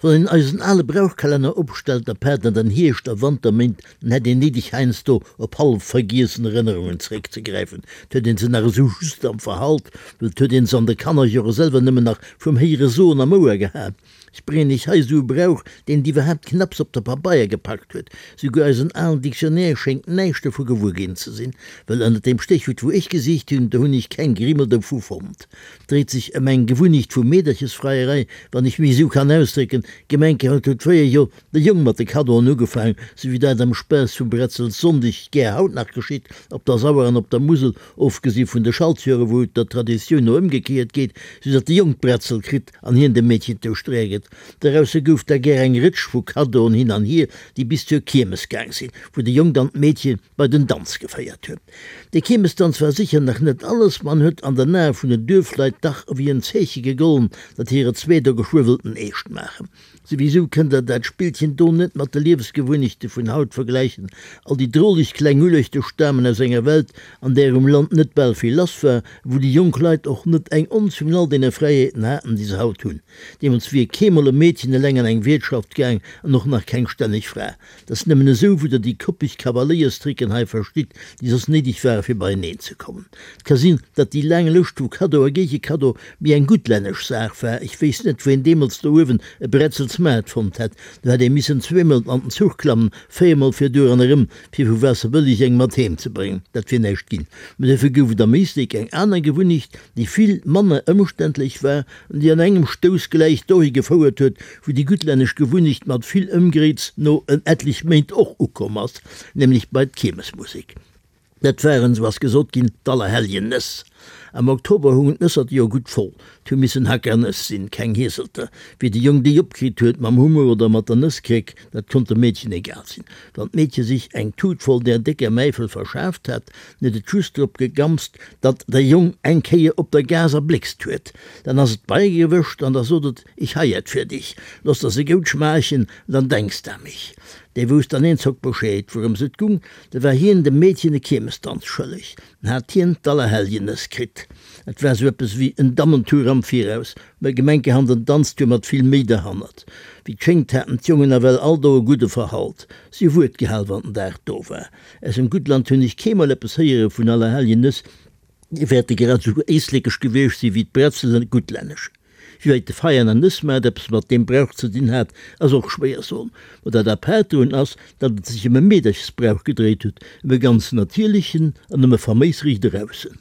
Wann een eisen ale Brauchkalenner opstellt, apaart an den Hierscht a Wanterméint, dann hätt een néideg heiansdo op hallef vergiessen Erënnerungen zeréckzegräifen. 't huet een se nach esou just am Verhalt, well 't huet een se an de Kannerjore selwer nëmmen nach vum héiere Soen am Ouer gehat. Ech bréngen iech hei esou e Brauch, deen et iwwerhaapt knapps op de Pabeier gepackt huet. Souguer eisen alen Dictionnaire schéngt näischt dovu gewuer ginn ze sinn, well ënnert deem Stéchwuert wou ech gesicht hunn, do hunn ech keng Grimmel dovu fonnt. Dréit sech ëm eng Gewunnecht vu Meederchesfreierei, wann ech mech esou kann ausdrécken. Gemenkerot huet fréier jo de Jong mat de Kaddoen ugefaang, sou wéi dat am Spaass vum Bretzels-Sonndeg gär haut nach geschitt, op der Sauer an op der Musel, ofgesi vun de Schaltjore wou et der Traditioun no ëmgekéiert geet, sou datt de Jong d'Bretzel kritt an hien dem Meedchen d'Ouschtereer gëtt. Dorausse gouf da gär eng Rëtsch vu Kaddoen hin an hier, déi bis zur Kiermes gaang sinn, wou de Jong dann d'Meedche bei den Danz geféiert huet. De Kiermesdanz war sécher nach net alles, ma en huet an den Ae vun den Duerfleit dach ewéi en Zeeche gegollen, datt hire zwee do geschwë wëllten eescht maachen. Souwisou kënnt der dat Spillchen do net mat de Liewesgewunnechte vun haut vergläichen. All déi droleg kleng Ulechte stamen aus enger Welt, an där um Land net bal vill lass war, wou déi jonk Leit och net eng Onz vun all deene Fräiheeten haten, déi se haut hunn. Deemools wier keemol e Meedchen eleng an eng Wiertschaft gaang an och nach keng stänneg Fra. 't ass nëmmen esou, wou der déi koppeg Kavaléierstricken hei verstitt, déi soss néideg ware fir beieneen ze kommen. 't ka sinn, datt déi laang Lëscht vu Kaddo a Géigekaddo méi eng guttlännesch Saach war. Ech wéisst net, wou een deemools do uewen e Bretzelsmaart fonnt hätt. Do hätt ee missen zweemol an den Zuch klammen, véiermol fir duer an erëm, fir vu Waasserbëlleg eng mat heem ze bréngen. Dat wier näischt ginn. Mä dofir gouf et am Éislek eng aner Gewunnecht, déi vill manner ëmständlech war an déi an engem Stouss gläich dohi gefouert huet, wou déi guttlännesch Gewunnecht mat vill Ëmgréiz no en ettlech Méint och ukomm ass, nämlech bei d'Kiermesmusek. Dat waren, sou ass gesot ginn, d'Allerhelljen-Nëss. Am Oktober hungen d'Nësserte jo gutt voll. 't hu missen Hackernëss sinn, keng Hieselter. Wéi de Jong déi opkritt huet, mam Hummer oder mat der Nësskréck, dat konnt dem Meedchen egal sinn. Wann d'Meedche sich eng Tut voll där décker Mäifel verschaaft hat, dann huet et just drop gegammst, datt de Jong eng Kéier op der Gaass erbléckst huet. Dann ass et beigewëscht an da sot et, Ich hei et fir dich, loss der se goud schmaachen, dann denks d'à mich. Dee wousst an eenzock Bescheed, wourëms et gung, da war hien dem Meedchen e Kiermesdanz schëlleg, en hat hien d'Allerhelljenëss kritt. Et war sou eppes wéi en Dammentour am Viraus, mä gemenkehand en Danztour mat vill Méi derhannert. Wéi 't schéngt haten d'Jongen nawell all do e gudde Verhalt, si hu Wuert gehal, wann den Dag do war. Aus dem Guttland hunn ech keemol eppes héiere vun Allerhelljenëss, déi wäerte grad esou éislekesch gewiescht si wéi d'Bretzelen guttlännesch. Wéi wäit de Veianer Nëssmaart eppes mat deem Brauch ze dinn hat, ass och schwéier soen. Ma dat apaart drun ass, datt et sech ëm e Meederchesbrauch gedréit huet, ëm e ganz natierlechen an ëm e faméis riicht eraussen.